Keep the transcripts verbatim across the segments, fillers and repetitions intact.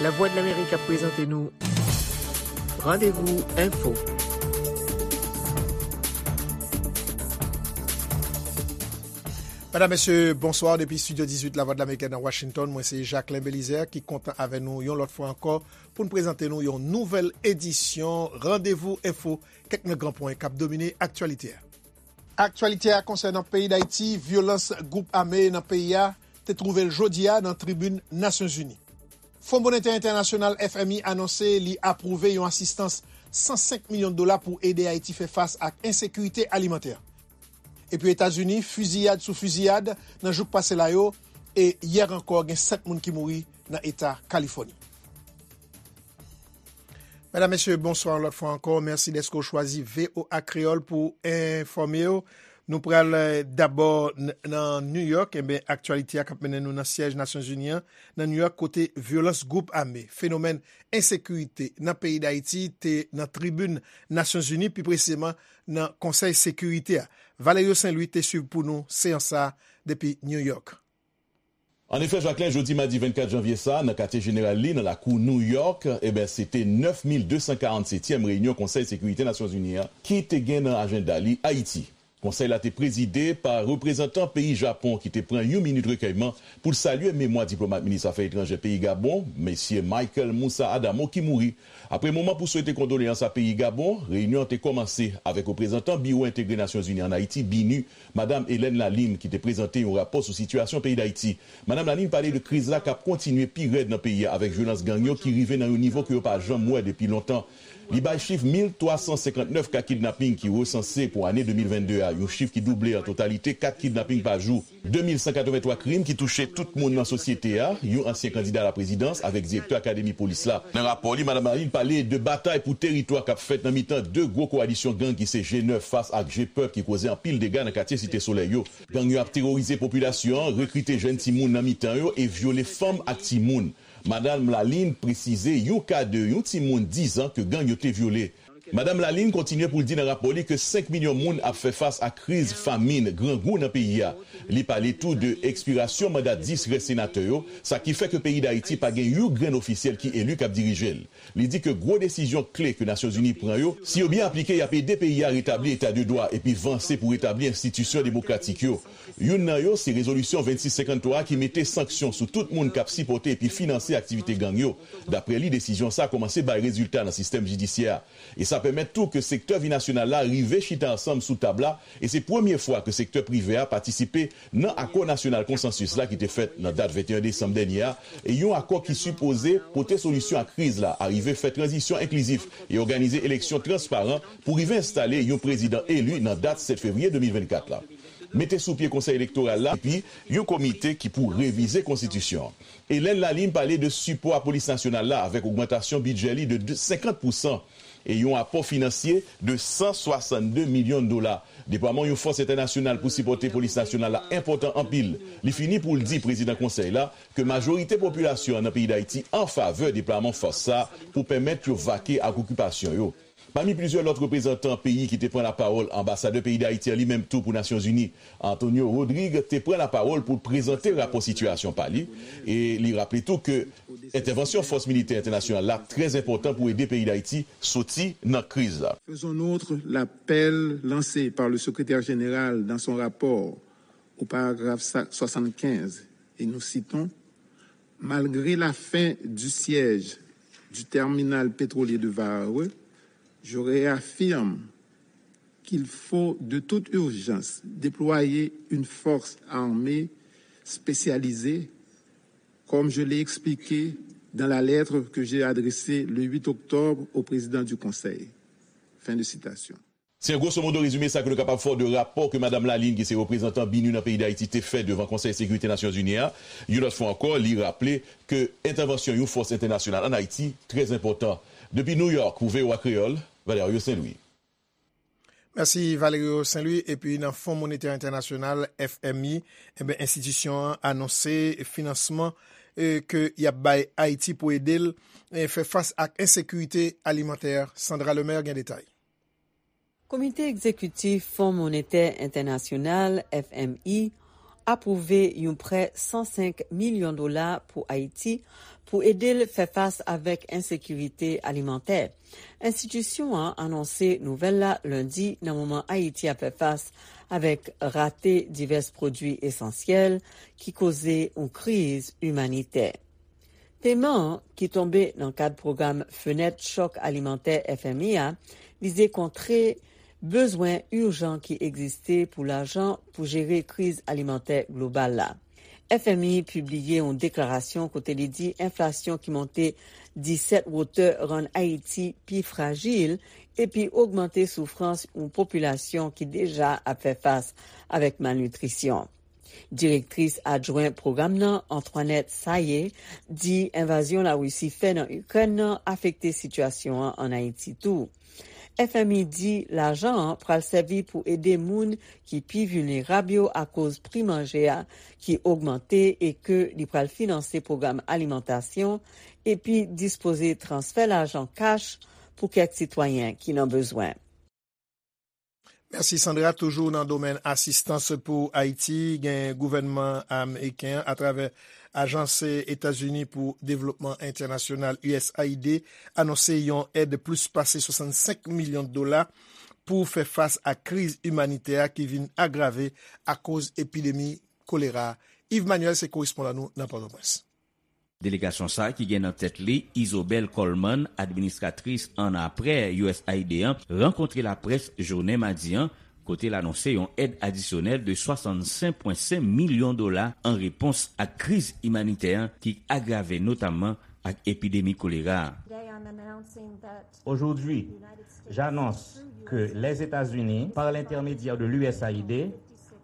Lavwadlamerik ap prezante nou Randevou Enfo. Medam, mesye, bonswa. Depi Estidyo dizuit Lavwadlamerik nan Washington, mwen se Jacquelin Belizaire ki kontan avè nou yon lòt fwa ankò pou n prezante nou yon nouvèl edisyon Randevou Enfo, kèk nan gran pwen k ap domine aktyalite a. Aktyalite a konsènan peyi Dayiti, vyolans gwoup ame nan peyi a te twouve l jodi a nan tribin Nasyonzini. Fon Monetè Entènasyonal, F M I, anonse li apwouve yon asistans san senk milyon dola pou ede Ayiti fè fas ak ensekirite alimantè. Epi Etazini, fiziyad sou fiziyad nan jou k pase la yo, e yè ankò gen sèt moun ki mouri nan eta Kalifòni. Medam, mesye, bonswa yon lòt fwa ankò. Mèsi dèske w chwazi V O A Kreyòl pou enfòme w. Nou pral, eh, dabò n- nan New York. Enben, aktyalite a k ap mennen nou nan syèj Nasyonzini an, nan New York, kote vyolans gwoup ame, fenomèn ensekirite nan peyi Dayiti te nan tribin Nasyonzini, pi presizeman nan Konsèy Sekirite a. Valerio Saint Louis te swiv pou nou seyans sa a depi New York. An efè, Jacquelin, jodi madi vennkat janvye sa a, nan katye jeneral li, nan lakou New York, eben, se te nèf mil de san karannsetyèm reyinyon Konsèy Sekirite Nasyonzini an ki te gen nan ajanda li Ayiti. Konsèy la te prezide pa reprezantan peyi Japon ki te pran yon minit rekèyman pou l salye memwa diplomat minis afè etranjè peyi Gabon, mesye Michael Moussa Adamo, ki mouri. Apre moman pou swete kondoleyans a peyi Gabon, reyinyon an te kòmanse avèk reprezantan Biwo Entegre Nasyonzini ann Ayiti, BINUH, Madam Hélène Lalime, ki te prezante yon rapò sou sitiyasyon peyi Dayiti. Madam Lalime pale de kriz la k ap kontinye pi rèd nan peyi a avèk vyolans gang yo ki rive nan yon nivo ke yo pa janm wè depi lontan. Li bay chif mil twa san senkantnèf ka kidnaping ki resanse pou ane de mil vennde a, yon chif ki double an totalite kat kidnaping pa jou. De mil san katrevenntwa krim ki touche tout moun nan sosyete a, yon ansyen kandida laprezidans avèk direktè akademi polis la. Nan rapò li, Madam Lalime pale de batay pou teritwa k ap fèt nan mitan de gwo kowalisyon gang ki se G nèf fas ak G pèp ki koze anpil dega nan katye Site Solèy yo. Gang yo ap teworize popilasyon an, rekrite jèn timoun nan mitan yo e vyole fanm ak timoun. Madam Lalime presize yon ka de yon timoun diz an ke gang yo te vyole. Madam Lalime kontinye pou l di nan rapò li ke senk milyon moun ap fè fas ak kriz famin, grangou nan peyi a. Li pale tou de ekspirasyon manda dis rès senatè yo, sa ki fè ke peyi Dayiti pa gen yon grenn ofisyèl ki eli k ap dirije l. Li di ke gwo desizyon kle ke Nasyonzini pran yo, si yo byen aplike, y ap ede peyi a retabli eta de dwa epi vanse pou retabli enstitisyon demokratik yo. Youn nan yo se rezolisyon vennsis senkanntwa a ki mete sanksyon sou tout moun k ap sipòte epi finanse aktivite gang yo. Daprè li, desizyon sa a kòmanse bay rezilta nan sistèm jidisyè a. E sa pèmèt tou ke sektè vi nasyonal la rive chita ansanm sou tab la, e se premye fwa ke sektè prive a patisipe nan akò nasyonal konsansis la ki te fèt nan dat venteyen desanm dènye a, e yon akò ki sipoze pote solisyon a kriz la, arive fè tranzisyon enklizif e òganize eleksyon transparan pou rive enstale yon prezidan eli nan dat sèt fevriye de mil vennkat la. Mete sou pye Konsèy Elektoral la, epi yon komite ki pou revize konstitisyon an. Hélène Lalime pale de sipò a Polis Nasyonal la avèk ogmantasyon bidjè li de de, senkant pousan e yon apò finansye de san swasannde milyon dola. Deplwaman yon fòs entènasyonal pou sipòte Polis Nasyonal la enpòtan anpil. Li fini pou l di prezidan Konsèy la ke majorite popilasyon an nan peyi Dayiti an favè deplwaman fòs sa a pou pèmèt yo vake ak okipasyon yo. Pami plizyè lòt reprezantan peyi ki te pran lapawòl, anbasadè peyi Dayiti an li menm tou pou Nasyonzini, Antonio Rodrigue, te pran lapawòl pou l prezante rapò sitiyasyon pa li, e li raple tou ke entèvansyon fòs militè entènasyonal la trè enpòtan pou ede peyi Dayiti soti nan kriz la. Faisons nôtre l'appel lancé par le secrétaire général dans son rapport au paragraphe soixante-quinze, et nous citons : Malgré la fin du siège du terminal pétrolier de Varreux, je réaffirme qu'il faut de toute urgence déployer une force armée spécialisée, comme je l'ai expliqué dans la lettre que j'ai adressée le huit octobre au président du Conseil. Fin de citation. Se yon gwosomodo rezime sa ke nou kapab fè w de rapò ke Madam Lalime, ki se reprezantan BINUH nan peyi Dayiti, te fè devan Konsèy Sekirite Nasyonzini a. Yon lòt fwa ankò, li raple ke entèvansyon yon fòs entènasyonal ann Ayiti trè enpòtan. Depi New York, pou V O A Kreyòl, Valerio Saint Louis. Mèsi Valerio Saint Louis. Epi nan Fon Monetè Entènasyonal, F M I, enben, enstitisyon an anonse finansman, eh, ke y ap bay Ayiti pou ede l, eh, fè fas ak ensekirite alimantè. Sandra Lemaire gen detay. Komite Egzekitif Fon Monetè Entènasyonal, F M I, apwouve yon prè san senk milyon dola pou Ayiti pou ede l fè fas avèk ensekirite alimantè. Enstitisyon an anonse nouvèl la lendi nan moman Ayiti ap fè fas avèk rate divès pwodui esansyèl ki koze yon kriz imanitè. Peman an, ki tonbe nan kad pwogram Fenèt Chòk Alimantè F M I a, vize kontre bezwen ijan ki egziste pou lajan pou jere kriz alimantè global la. F M I pibliye yon deklarasyon kote li di enflasyon ki monte disèt wotè rann Ayiti pi frajil epi ogmante soufrans yon popilasyon ki deja ap fè fas avèk malnitrisyon. Direktris adjwen pwogram nan, Antoinette Sayé, di envazyon Larisi fè nan Ikrèn nan afekte sitiyasyon an ann Ayiti tou. F M I di lajan an pral sèvi pou ede moun ki pi vilnerab yo akoz pri manje a ki ogmante e ke li pral finanse pwogram alimantasyon epi dispoze transfè lajan kach pou kèk sitwayen ki nan bezwen. Mèsi Sandra. Toujou nan domèn asistans pou Ayiti, gen gouvènman ameriken an atravè Ajans Etazini pou Devlopman Entènasyonal, U S A I D, anonse yon èd plis pase swasannsenk milyon dola pou fè fas ak kriz imanitè a ki vin agrave akoz epidemi kolera. Yves Manuel se korespondan nou nan Pòtoprens. Delegasyon sa a ki gen nan tèt li Isobel Coleman, administratris annapre U S A I D an, rankontre laprès jounen madi an, kote l anonse yon èd adisyonèl de swasannsenk pwen senk milyon dola an repons ak kriz imanitè an ki agrave notamman ak epidemi kolera a. Aujourd'hui, j'annonce que les États-Unis, par l'intermédiaire de l'U S A I D,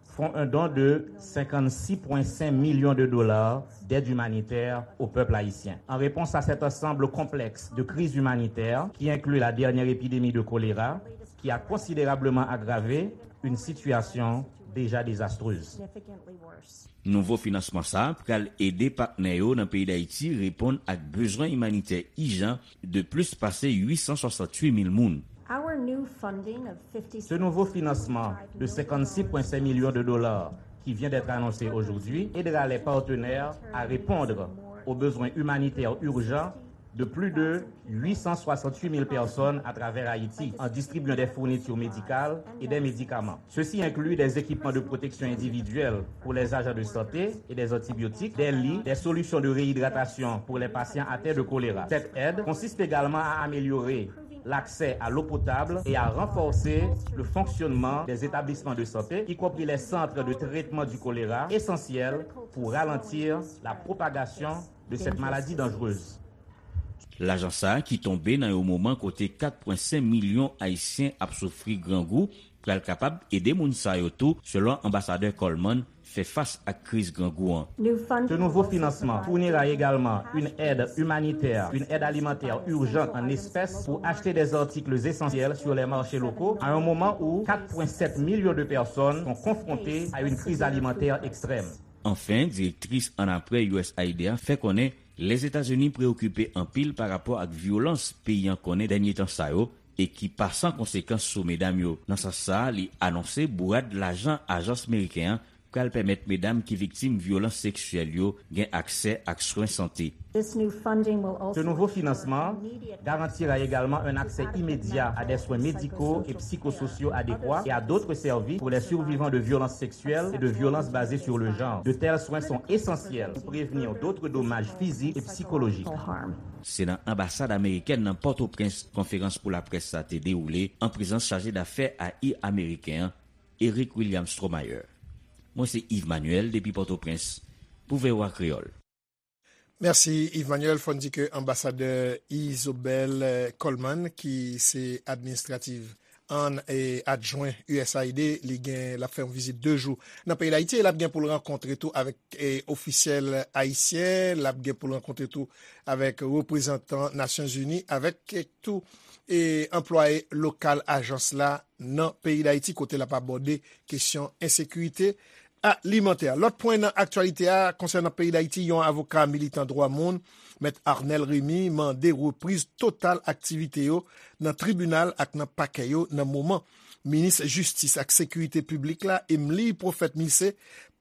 font un don de cinquante-six point cinq millions de dollars d'aide humanitaire au peuple haïtien. En réponse à cet ensemble complexe de crises humanitaires, qui inclut la dernière épidémie de choléra, qui a considérablement aggravé une situation déjà désastreuse. Nouvo finansman sa a pral ede patnè yo nan peyi Dayiti reponn ak bezwen imanitè ijan de plis pase uit san swasanntuit mil moun. Ce nouveau financement de cinquante-six point cinq millions de dollars qui vient d'être annoncé aujourd'hui aidera les partenaires à répondre aux besoins humanitaires urgents de plus de huit cent soixante-huit mille personnes à travers Haïti en distribuant des fournitures médicales et des médicaments. Ceci inclut des équipements de protection individuelle pour les agents de santé et des antibiotiques, des lits, des solutions de réhydratation pour les patients atteints de choléra. Cette aide consiste également à améliorer l'accès à l'eau potable et à renforcer le fonctionnement des établissements de santé, y compris les centres de traitement du choléra, essentiels pour ralentir la propagation de cette maladie dangereuse. Lajan sa a ki tonbe nan yon moman kote kat pwen senk milyon Ayisyen ap soufri grangou, pral kapab ede moun sa yo tou, selon Anbasadè Coleman, fè fas ak kriz grangou an. Ce nouveau financement fournira également une aide humanitaire, une aide alimentaire urgente en espèces pour acheter des articles essentiels sur les marchés locaux à un moment où quatre point sept millions de personnes sont confrontées à une crise alimentaire extrême. Anfen, direktris annapre U S A I D a fè konnen Lèzetazini preyokipe anpil pa rapò ak vyolans peyi an konnen dènye tan sa yo e ki pa san konsekans sou medam yo. Nan sans sa a, li anonse bourad lajan ajans meriken an pral pèmèt medam ki viktim vyolans seksyèl yo gen aksè ak swen sante. Ce nouveau financement garantira également un accès immédiat à des soins médicaux et psychosociaux adéquats et à d'autres services pour les survivants de violences sexuelles et de violences basées sur le genre. De tels soins sont essentiels pour prévenir d'autres dommages physiques et psychologiques. Se nan anbasad amerikèn nan Pòtoprens konferans pou laprès sa te dewoule an prezans chaje dafè A I ameriken an, Eric William Stromayer. Mwen se Yves Manuel depi Pòtoprens pou V O A Kreyòl. Mèsi Yves Manuel. Fò n di ke anbasadè Isobel Coleman, ki se administrative an e adjwen U S A I D, li gen, l ap fè yon vizit de jou nan peyi Dayiti e l ap gen pou l rankontre tou avèk e ofisyèl ayisyen, l ap gen pou l rankontre tou avèk reprezantan Nasyonzini, avèk tou e anplwaye lokal ajans la nan peyi Dayiti, kote l ap abòde kesyon ensekirite alimantè. Lòt pwen nan aktyalite a konsènan peyi Dayiti, yon avoka militan dwa moun, Mèt Arnel Remy, mande repriz total aktivite yo nan tribinal ak nan pakè yo nan moman Minis Jistis ak Sekirite Piblik la, Emely Prophète Milcé,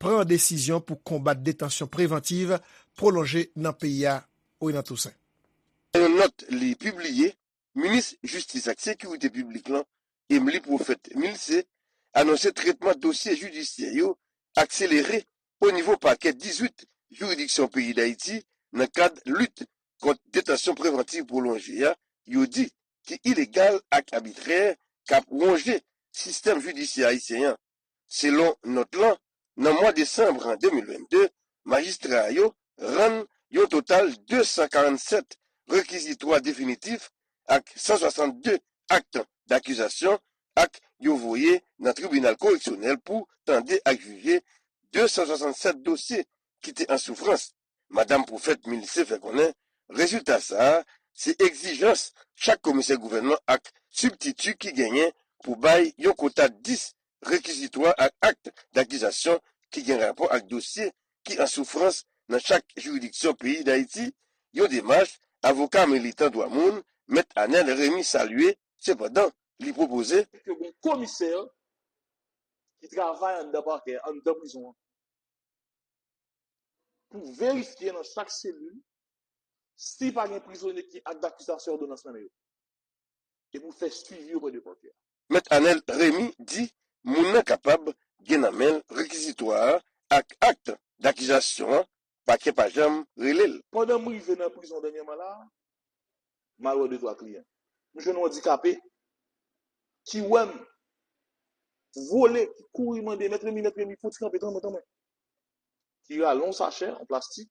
pran desizyon pou konbat detansyon prevantiv pwolonje nan peyi a, Renan Toussaint. Nan yon nòt li pibliye, minis jistis ak sekirite piblik lan, Emely Prophète Milcé, anonse tretman dosye jidisyè yo akselere o nivo pakè dizuit jiridiksyon peyi Dayiti nan kad lit kont detansyon prevantiv pwolonje a, yo di ki ilegal ak abitrè, k ap wonje sistèm jidisyè ayisyen an. Selon nòt lan, nan mwa desanm de mil vennde, majistra yo rann yon total de san karannsèt rekizitwa definitif ak san swasannde ak dakizasyon, ak yo voye nan tribinal koreksyonèl pou tande ak jije de san swasannde sèt dosye ki te an soufrans. Madam Prophète Milcé fè konnen rezilta sa a se egzijans chak komisè gouvènman ak sibtiti ki genyen pou bay yon kota dis rekizitwa ak ak dakizasyon ki gen rapò ak dosye ki an soufrans nan chak jiridiksyon peyi Dayiti, yon demach avoka militan dwa moun, Mèt Anèl Remy salye. Sepandan, li pwopoze ke gon komisè ki travay anndan pakè, anndan prizon an, pou verifye nan chak selil si pa gen prizonye ki ak dakizasyon òdonans nan men yo, e pou fè swivi oprè de pakè. Mèt Anèl Remy di moun nan kapab gen nan men l rekizitwa a ak ak dakizasyon an, pakè pa janm rele l. Pandan m rive nan prizon dènyèman la a, m al wè de twa kliyan. M jwenn yon andikape ki wè m vole, ki kouri mande, "Mèt Remy, Mèt Remy, fè yon ti kanpe, tann mwen, tann mwen." Ki rale yon sachè an plastik.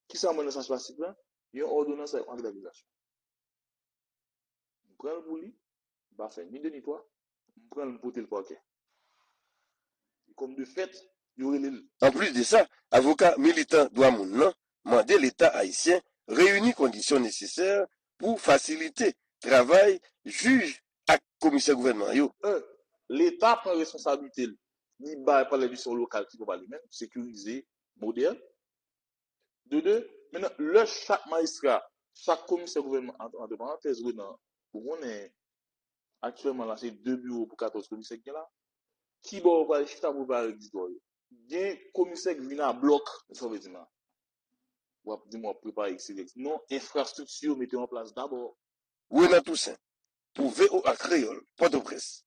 Kisa m wè nan sachè plastik lan? Yon òdonans ak ak dakizasyon. M pran l pou li, m pa fè ni de ni twa, m pran l, m pote l pakè. E kòm de fèt, yo rele l. Anplis de sa, avoka militan dwa moun nan mande Leta ayisyen reyini kondisyon nesesè pou fasilite travay jij ak komisè gouvènman yo. Un, Leta pran responsablite l, li bay palè de jistisyon lokal ki pran pa li menm, sekirize, modèn. De de, mentnan, lè chak majistra, chak komisè gouvènman, ant, ant parantèz, Renan, ou konnen, aktyèlman la, se de biwo pou katòz komisè ki gen la. Ki bò yo pral chita pou yo pral registrè yo? Gen komisè ki vin a blòk, sa w vle di m la? W ap di m w ap prepare X Y Z. Non, enfrastrikti yo mete yo an plas dabò. Renan Toussaint, pou V O A Kreyòl, Pòtoprens.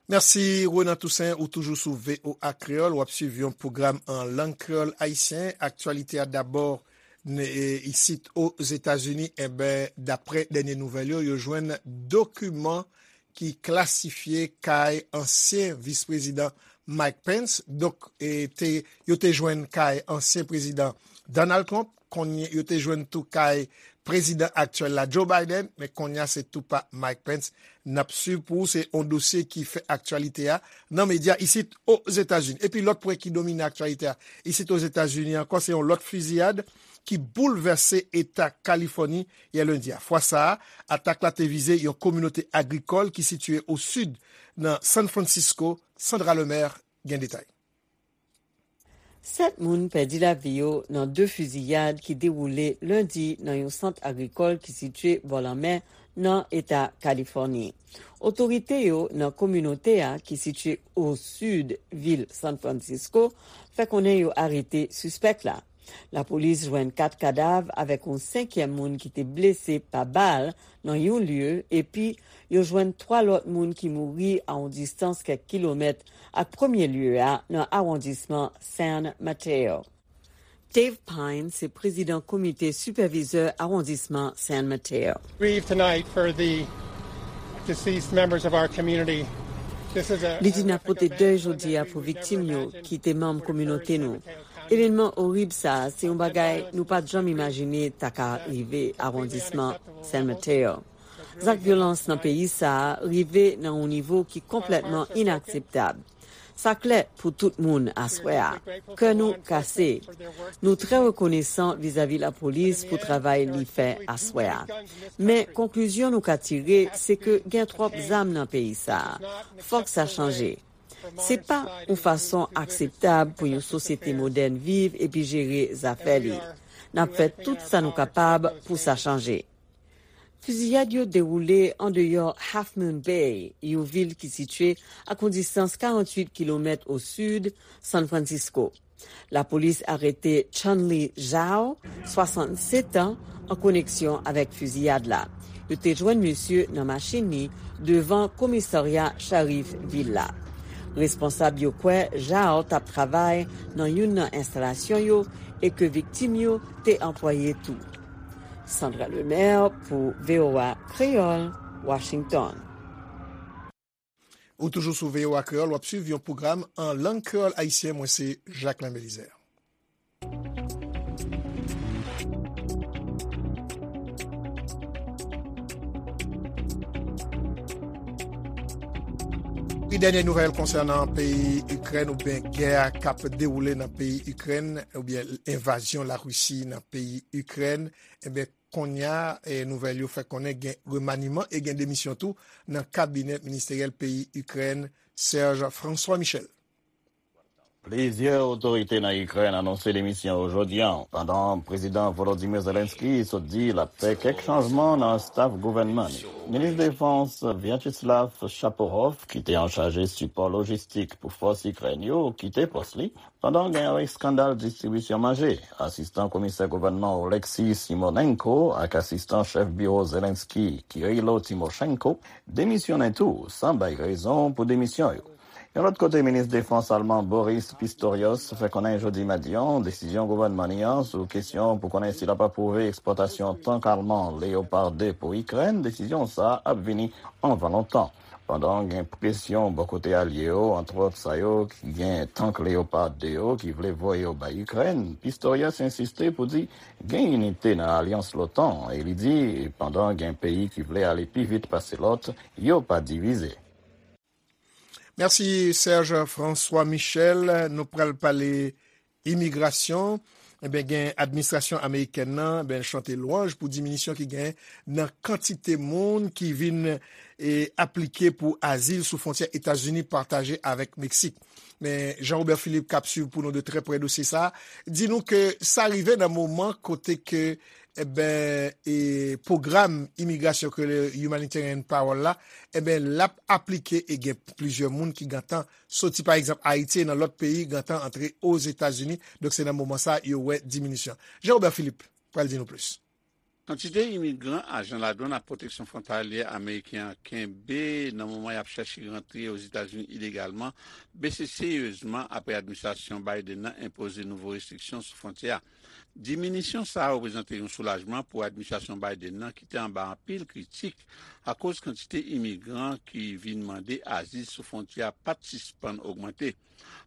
Mèsi, Renan Toussaint, ou toujou sou V O A Kreyòl, w ap swiv yon pwogram an lang kreyòl ayisyen. Aktyalite a dabò, n-, e, isit Ozetazini, enben, daprè dènye nouvèl yo, yo jwenn dokiman ki klasifye kay ansyen vis prezidan Mike Pence. Donk, e, te, yo te jwenn kay ansyen prezidan Donald Trump, kounye yo te jwenn tou kay prezidan aktyèl la, Joe Biden, men kounye a se tou pa Mike Pence n ap swiv pou ou. Se yon dosye ki fè aktyalite a nan medya isit Ozetazini. Epi lòt pwen ki domine aktyalite a isit Ozetazini ankò, se yon lòt fiziyad ki boulvèse eta Kalifòni yè lendi a. Fwa sa a, atak la te vize yon kominote agrikòl ki sitiye o sid nan San Francisco. Sandra Lemaire gen detay. Sèt moun pèdi lavi yo nan de fiziyad ki dewoule lendi nan yon sant agrikòl ki sitiye bò lanmè nan eta Kalifòni. Otorite yo nan kominote a ki sitiye o sid vil San Francisco fè konnen yo arete sispèk la. Lapolis jwenn kat kadav avèk yon senkyèm moun ki te blese pa bal nan yon lye, epi yo jwenn twa lòt moun ki mouri a yon distans kèk kilomèt ak premye lye a nan awondisman San Mateo. Dave Pine se prezidan komite sipèvizè awondisman San Mateo. Grieve tonight for the deceased members of our community. This is a Li di n ap pote dèy jodi a pou viktim yo ki te manm kominote nou. Evènman orib sa a, se yon bagay nou pa t janm imajine ta ka rive awondisman San Mateo. Zak vyolans nan peyi sa a rive nan yon nivo ki konplètman inakseptab. Sa klè pou tout moun aswè a. Kè nou kase. Nou trè rekonesan vizavi lapolis pou travay li fè aswè a. Men, konklizyon nou ka tire, se ke gen twòp zam nan peyi sa a. Fòk sa chanje. Se pa yon fason akseptab pou yon sosyete modèn viv epi jere zafè li. N ap fè tout sa nou kapab pou sa chanje. Fiziyad yo dewoule andeyò Half Moon Bay, yon vil ki sitiye ak yon distans karanntuit kilomèt o sid San Francisco. Lapolis arete Chun-Li Zhao, swasannsèt an, an koneksyon avèk fiziyad la. Yo te jwenn misye nan machin li devan komisarya Sharif vil la. Responsab yo kwè Zhao t ap travay nan youn nan enstalasyon yo e ke viktim yo te anplwaye tou. Sandra Lemaire pou V O A Kreyòl, Washington. Ou toujou sou V O A Kreyòl, w ap swiv yon pwogram an lang kreyòl ayisyen. Mwen se Jacquelin Belizaire. Pi dènye nouvèl konsènan peyi Ikrèn oubyen gè k ap dewoule nan peyi Ikrèn oubyen envazyon Larisi nan peyi Ikrèn, ebyen, kounye a, nouvèl yo fè konnen gen remaniman e gen demisyon tou nan kabinè ministeryèl peyi Ikrèn, Serge François Michel. Plizyè otorite nan Ikrèn anonse demisyon yo jodi a, pandan Prezidan Volodymyr Zelensky sot di l ap fè kèk chanjman nan staf gouvènman li. Minis Defans Vyacheslav Shapovalov, ki te anchaje sipò lojistik pou fòs Ikrèn yo, kite pòs li, pandan gen yon eskandal distribisyon manje. Asistan komisè gouvènman Oleksiy Simonenko ak asistan chèf biwo Zelensky, Kirilo Timoshenko, demisyonnen tou, san bay rezon pou demisyon yo. Yon lòt kote, minis defans alman Boris Pistorius fè konnen jodi madi a, desizyon gouvènman li an sou kesyon pou konnen si l ap apwouve ekspòtasyon tank alman Leopard de pou Ikrèn, desizyon sa a ap vini anvan lontan. Pandan gen presyon bò kote alye yo, antwòt sa yo ki gen tank Leopard de yo ki vle voye yo bay Ikrèn, Pistorius ensiste pou di gen inite nan alyans l'OTAN e li di pandan gen peyi ki vle ale pi vit pase lòt, yo pa divize. Mèsi Serge François Michel. Nou pral pale imigrasyon. Enben, gen administrasyon amerikèn nan, enben, chante lwanj pou diminisyon ki gen nan kantite moun ki vin e, aplike pou azil sou fwontyè Etazini pataje avèk Meksik. Men Jean Robert Philippe k ap swiv pou nou de trè prè dosye sa a, di nou ke sa rive nan moman kote ke enben, e, pwogram imigrasyon ke le Humanitarian Parole la, enben, l ap aplike e gen plizyè moun ki gentan soti, pa egzanp, Ayiti e nan lòt peyi gentan antre Ozetazini. Donk, se nan moman sa a yo wè diminisyon. Jean Robert Philippe pral di nou plis. Kantite imigran ajan ladwann ak pwoteksyon fwontalyè ameriken an kenbe nan moman y ap chèche rantre Ozetazini ilegalman bese seryezman apre administrasyon Biden nan enpoze nouvo restriksyon sou fwontyè a. Diminisyon sa a reprezante yon soulajman pou administrasyon Biden nan ki te anba anpil kritik akoz kantite imigran ki vin mande azil sou fwontyè a pa t sispann ogmante.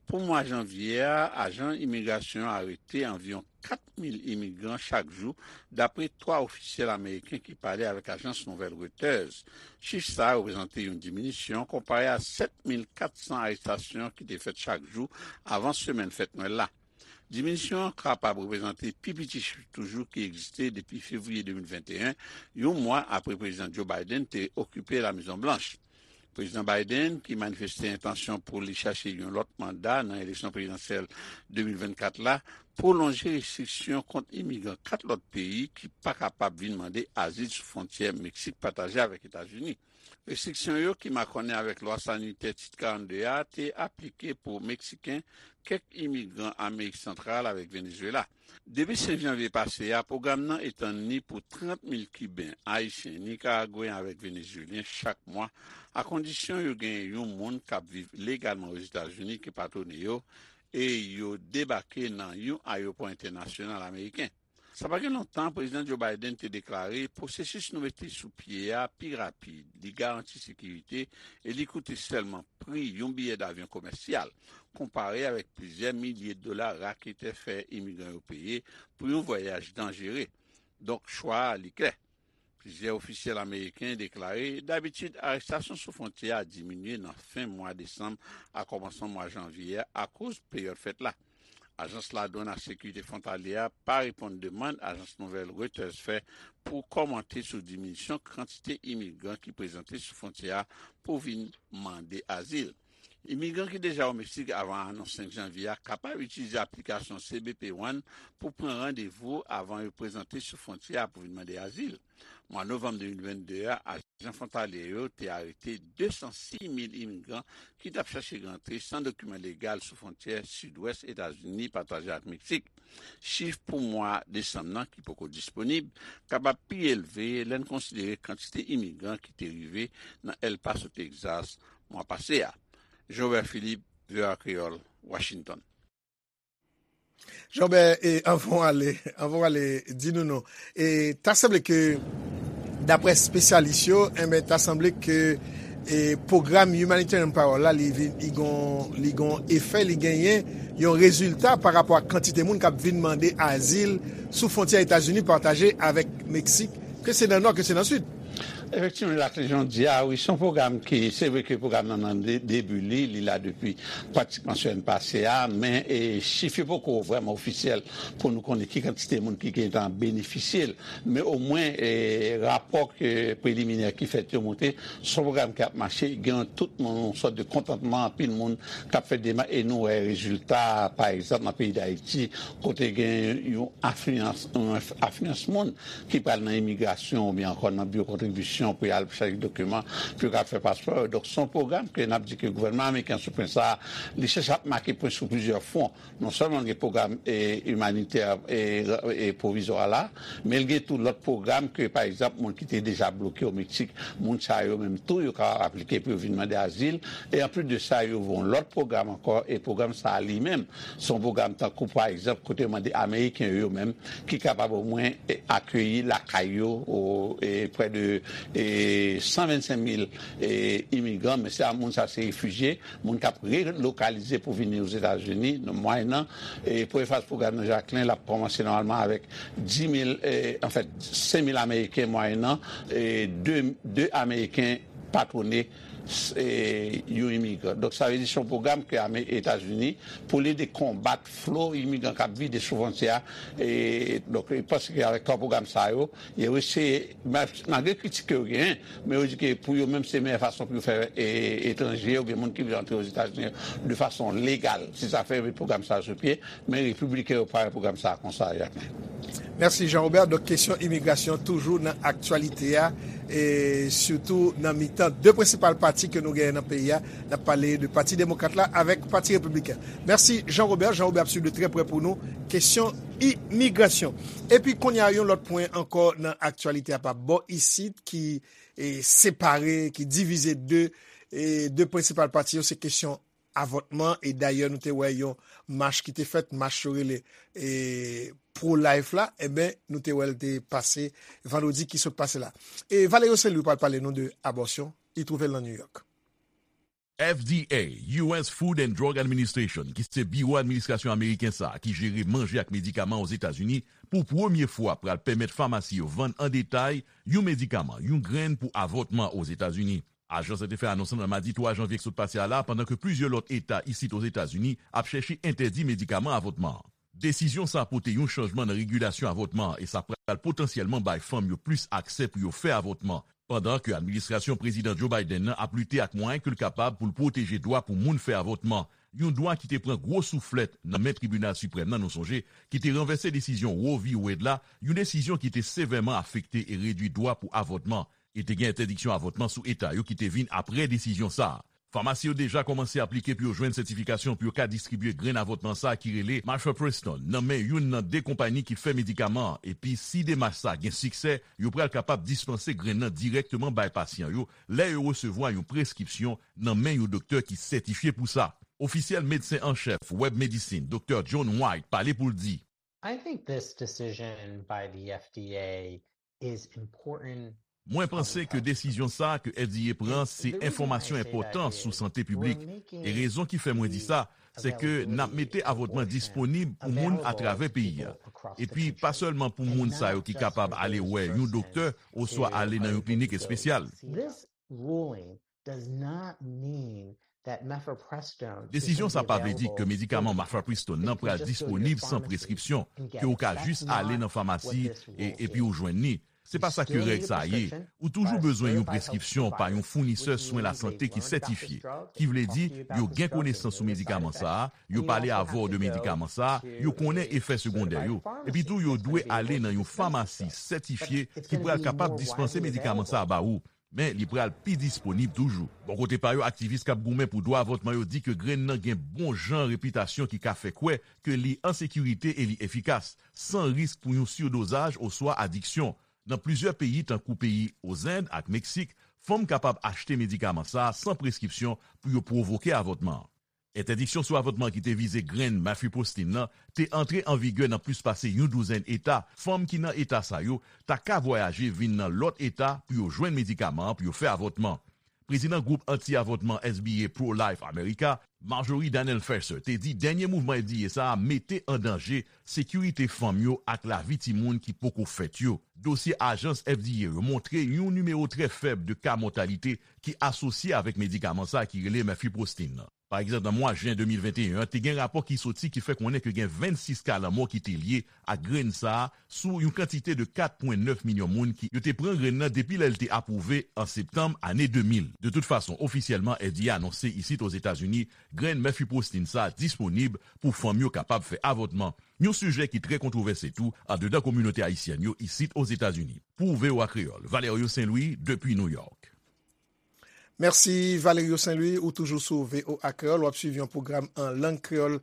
Pou mwa janvye a, ajan imigrasyon an arete anviwon kat mil imigran chak jou, dapre twa ofisyèl ameriken ki pale avèk ajans nouvèl Reuters. Chif sa a reprezante yon diminisyon konpare a sèt mil kat san arestasyon ki te fèt chak jou avan semèn fèt Nwèl la. Diminisyon an kapab reprezante pi piti chif toujou ki egziste depi fevriye de mil venteyen, yon mwa apre Prezidan Joe Biden te okipe La Mezon Blanch. Prezidan Biden, ki manifeste entansyon pou li chache yon lòt manda nan eleksyon prezidansyèl de mil vennkat la, pwolonje restriksyon kont imigran kat lòt peyi ki pa kapab vin mande azil sou fwontyè Meksik pataje avèk Etazini. Restriksyon yo, ki makònen avèk lwa sanitè Tit karannde a, te aplike pou Meksiken, kèk imigran Amerik Santral avèk Venezuela. Depi senk janvye pase a, pwogram nan etann li pou trant mil Kiben, Ayisyen, Nikaragweyen avèk Venezuelyen chak mwa, akondisyon yo genyen yon moun k ap viv legalman Ozetazini ki patwone yo e yo debake nan yon ayewopò entènasyonal ameriken. Sa pa gen lontan, Prezidan Joe Biden te deklare pwosesis nou mete sou pye a pi rapid, li garanti sekirite e li koute sèlman pri yon biyè davyon komèsyal, konpare avèk plizyè milye dola raketè fè imigran yo peye pou yon vwayaj danjere. Donk, chwa a, li klè. Plizyè ofisyèl ameriken deklare, dabitid, arestasyon sou fwontyè a diminye nan fen mwa desanm ak kòmansman mwa janvye a akoz peryòd fèt la. Ajans Ladwann ak Sekirite Fwontalye a pa reponn demann ajans nouvèl Reuters fè pou kòmante sou diminisyon kantite imigran ki prezante sou fwontyè a pou vin mande azil. Imigran ki deja o Meksik avan anons senk janvye a kapab itilize aplikasyon C B P One pou pran randevou avan yo prezante sou fwontyè a pou vin mande azil. Mwa novanm de mil vennde a, ajan fwontalye yo te arete de san sis mil imigran ki t ap chache rantre san dokiman legal sou fwontyè sidwès Etazini pataje ak Meksik. Chif pou mwa desanm nan, ki poko disponib, kapab pi elve lè n konsidere kantite imigran ki te rive nan El Paso, Texas, mwa pase a. Jean Robert Philippe, V O A Kreyòl, Washington. Jean Robert, e, anvan w ale, anvan w ale, di nou non. E, ta sanble ke, daprè espesyalis yo, enben, ta sanble ke, e, pwogram Humanitarian Parole la, li vin, li gon, li gon efè, li genyen yon rezilta pa rapò ak kantite moun k ap vin mande azil sou fwontyè Etazini pataje avèk Meksik, ke se nan nò, ke se nan sid. Efektivman, Laclé, jan w di a, wi, se yon pwogram ki, se vre ke pwogram nan nan de- debi li, li la depi pratikman semèn pase a, men e, chif yo poko vrèman ofisyèl pou nou konnen ki kantite moun ki gentan benefisye l. Men omwen, e, rapò ke preliminè ki fèt yo montre, se yon pwogram ki ap mache, gen tout moun, yon sòt de kontantman, anpil moun k ap fè demach, e nou wè rezilta, pa egzanp, nan peyi Dayiti, kote gen yon afliyans, yon afliyans moun ki pral nan imigrasyon oubyen ankò nan biwo kontribisyon pou y al chèche dokiman, pou yo ka fè paspò yo. Donk, se yon pwogram ke n ap di ke gouvènman ameriken sou pwen sa a, li chèche ap make pwen sou plizyè fwon. Non sèlman l gen pwogram, e, imanitè, e, e, pwovizwa la, men l gen tou lòt pwogram ke, pa egzanp, moun ki te deja bloke o Meksik, moun sa yo menm tou, yo ka aplike pou yo vin mande azil. E anplis de sa, yo voye yon lòt pwogram ankò, e pwogram sa a li menm, se yon pwogram tankou, pa egzanp, kote yo mande Ameriken yo menm, ki kapab omwen, e, akeyi lakay yo, o, e, prè de, e, san vennsenk mil, e, imigran, men se a moun sa se refijye, moun k ap relokalize pou vini Ozetazini, nan mwayennan, e, premye faz pwogram nan Jaklen, l ap kòmanse nòmalman avèk dis mil, e, anfèt, senk mil Ameriken mwayennan, e, de, de Ameriken patwone, e, yon imigran. Donk, sa vle di se yon pwogram ke ame Etazini pou l ede konbat flo imigran k ap vide sou fwontyè a. E, donk, e panse ke avèk twa pwogram sa yo, yo eseye, ma- malgre kritik ke yo genyen, men yo di ke pou yo menm se meyè fason pou yo fè, e, etranje, oubyen moun ki vle antre Ozetazini de fason legal. Se sa fè yo met pwogram sa yo sou pye, men repibliken yo pare pwogram sa a konsa, Jacquelin. Mèsi, Jean Robert. Donk, kesyon imigrasyon toujou nan aktyalite a, e sitou nan mitan de prensipal pati ke nou genyen nan peyi a. N ap pale de Pati Demokrat la avèk Pati Repibliken. Mèsi, Jean Robert. Jean Robert ap swiv de trè prè pou nou kesyon imigrasyon. Epi, kounye a, yon lòt pwen ankò nan aktyalite a pa bò isit ki, e, separe, ki divize de, e, de prensipal pati yo, se kesyon avòtman, e dayè nou te wè yon mach ki te fèt, mach yo rele, e, pro-life la, enben, nou te wè l te pase vandredi ki sot pase la. E Valerio Saint Louis pral pale nou de abòsyon, li twouve l nan New York. F D A, U S Food and Drug Administration, ki se biwo administrasyon ameriken sa a ki jere manje ak medikaman Ozetazini, pou premye fwa pral pèmèt famasi yo vann an detay yon medikaman, yon grenn pou avòtman Ozetazini. Ajans la te fè anons lan nan madi twa janvye k sot pase a la, pandan ke plizyè lòt eta isit Ozetazini ap chèche entèdi medikaman avòtman an. Desizyon sa a pote yon chanjman nan regilasyon avòtman an e sa pral potansyèlman bay fanm yo plis aksè pou yo fè avòtman, pandan ke administrasyon Prezidan Joe Biden nan ap lite ak mwayen ke l kapab pou l pwoteje dwa pou moun fè avòtman, yon dwa ki te pran gwo souflèt nan men Tribinal Siprèm nan, nou sonje, ki te ranvèse desizyon Roe v. Wade la, yon desizyon ki te sevèman afekte e redwi dwa pou avòtman, e te gen entèdiksyon avòtman sou eta yo ki te vin apre desizyon sa a. Famasi yo deja kòmanse aplike pou yo jwenn sètifikasyon pou yo ka distribye grenn avòtman sa a ki rele mifepristone nan men youn nan de konpayi ki fè medikaman an, epi si demach sa a gen siksè, yo pral kapab dispanse grenn nan dirèkteman bay pasyan yo lè yo resevwa yon preskripsyon nan men yon doktè ki sètifye pou sa. Ofisyèl medsen an chèf Webb Medicine, Doktè John White, pale pou l di, I think this decision by the F D A is important. Mwen panse ke desizyon sa a ke F D A pran se enfòmasyon enpòtan sou sante piblik. E rezon ki fè mwen di sa, se ke n ap mete avòtman disponib pou moun atravè peyi a. Epi, pa sèlman pou moun sa yo ki kapab ale wè yon doktè oswa ale nan yon klinik espesyal. This ruling does not mean that mifepristone Desizyon sa pa vle di ke medikaman mifepristone nan pral disponib san preskripsyon, ke w ka jis ale nan famasi e, epi w jwenn li. Se pa sa ke règ sa a ye. Ou toujou bezwen yon preskripsyon pa yon founisè swen lasante ki sètifye, ki vle di yo gen konesans sou medikaman sa a, yo pale avè w de medikaman sa a, yo konnen efè segondè yo. Epi tou, yo dwe ale nan yon famasi sètifye ki pral kapab dispanse medikaman sa a ba ou. Men li pral pi disponib toujou. Bò kote pa yo, aktivis k ap goumen pou dwa avòtman yo di ke grenn nan gen bon jan repitasyon ki ka fè kwè ke li an sekirite e li efikas, san risk pou yon sirdozaj oswa adiksyon. Nan plizyè peyi, tankou peyi Ozend ak Meksik, fanm kapab achte medikaman sa a san preskripsyon pou yo pwovoke avòtman an. Entèdiksyon sou avòtman ki te vize grenn mifepristone nan te antre an vigè nan plis pase yon douzèn eta. Fanm ki nan eta sa yo ta ka vwayaje vin nan lòt eta pou yo jwenn medikaman an pou yo fè avòtman. Prezidan gwoup anti-avòtman S B A Pro-Life America, Marjorie Daniel Ferser, te di dènye mouvman F D A sa a mete an danje sekirite fanm yo ak lavi timoun ki poko fèt yo. Dosye ajans F D A yo montre yon nimewo trè fèb de ka mòtalite ki asosye avèk medikaman sa a ki rele mifepristone nan. Pa egzanp, nan mwa jen de mil venteyen an, te gen rapò ki soti ki fè konnen ke gen vennsis ka lanmò ki te lye ak grenn sa a sou yon kantite de kat pwen nèf milyon moun ki yo te pran grenn nan depi lè l te apwouve an septanm ane de mil. De tout fason, ofisyèlman, F D A anonse isit Ozetazini, grenn mifepristone sa a disponib pou fanm yo kapab fè avòtman. Yon sijè ki trè kontwovèse tou andedan kominote ayisyèn yo isit Ozetazini. Pou V O A Kreyòl, Valerio Saint-Louis, depi New York. Mèsi Valerio Saint-Louis, ou toujou sou V O A Kreyòl, w ap swiv yon pwogram an lang kreyòl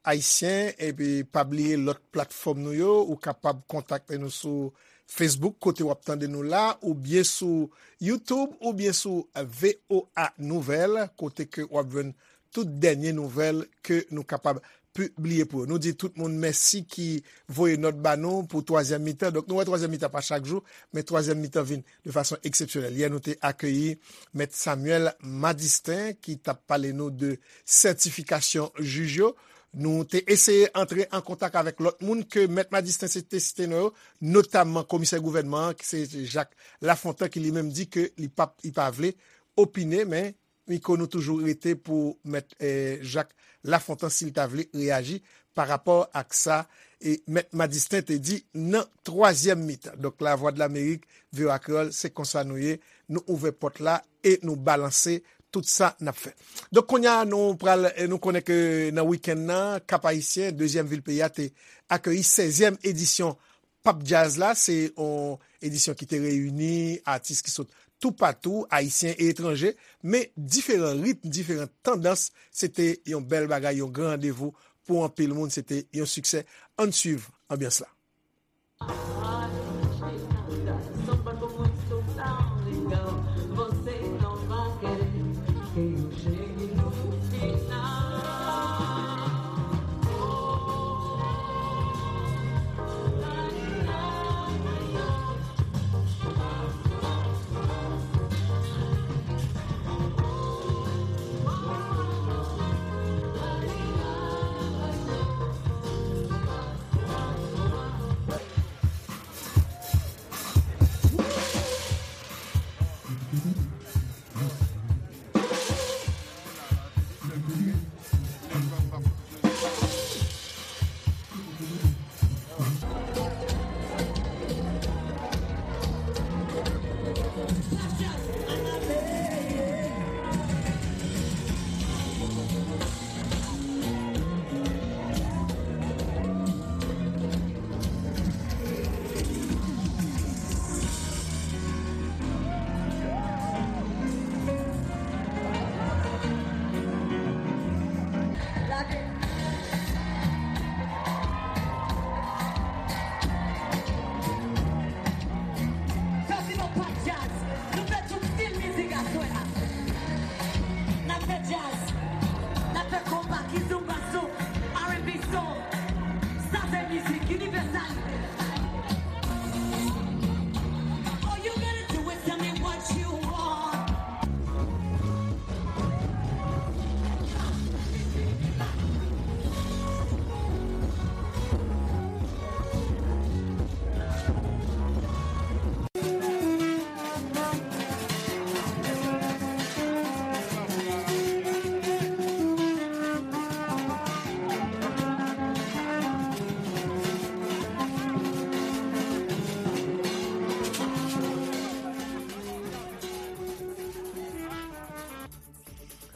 ayisyen, epi pa bliye lòt platfòm nou yo, ou kapab kontakte nou sou Facebook, kote w ap tande nou la, oubyen sou YouTube, oubyen sou V O A Nouvèl, kote ke w ap jwenn tout dènye nouvèl ke nou kapab pibliye pou yo. Nou di tout moun mèsi ki voye nòt ba nou pou twazyèm mitan. Donk, nou wè twazyèm mitan pa chak jou, men twazyèm mitan vin de fason eksepsyonèl. Yè, nou te akeyi Mèt Samuel Madistin, ki t ap pale nou de sètifikasyon jij yo. Nou te eseye antre an kontak avèk lòt moun ke Mèt Madistin se te site non yo, notamman komisè gouvènman an, ki se Jacques Lafontant, ki li menm di ke li p ap, li pa vle opine, men mikwo nou toujou rete pou Mèt, eh, Jacques Lafontant, si l ta vle reyaji pa rapò ak sa, e Mèt Madistin te di nan twazyèm mitan. Donk, Lavwadlamerik, V O A Kreyòl, se konsa nou ye. Nou ouvè pòt la e nou balanse tout sa n ap fè. Donk, kounye a, nou pral, eh, nou konnen ke nan wikenn nan, Kap Ayisyen, dezyèm vil peyi a, te akeyi sèzyèm edisyon Pap Djaz la, se yon edisyon ki te reyini atis ki sot toupatou, ayisyen e etranje, men diferan ritm, diferan tandans, se te yon bèl bagay, yon gran randevou pou anpil moun, se te yon siksè. Ann swiv anbyans la.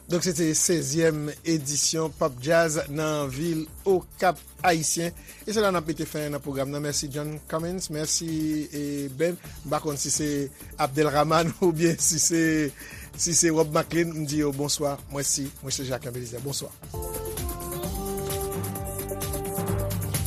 Donk, se te sèzyèm edisyon Pop Jazz nan vil Okap Ayisyen. E se la n ap mete fen nan pwogram nan. Mèsi John Cummins, mèsi e Ben. M pa konn si se Abdelrahman oubyen si se si se Rob Maclean, m di yo bonswa. Mwen si, mwen se Jacques Belizaire. Bonswa.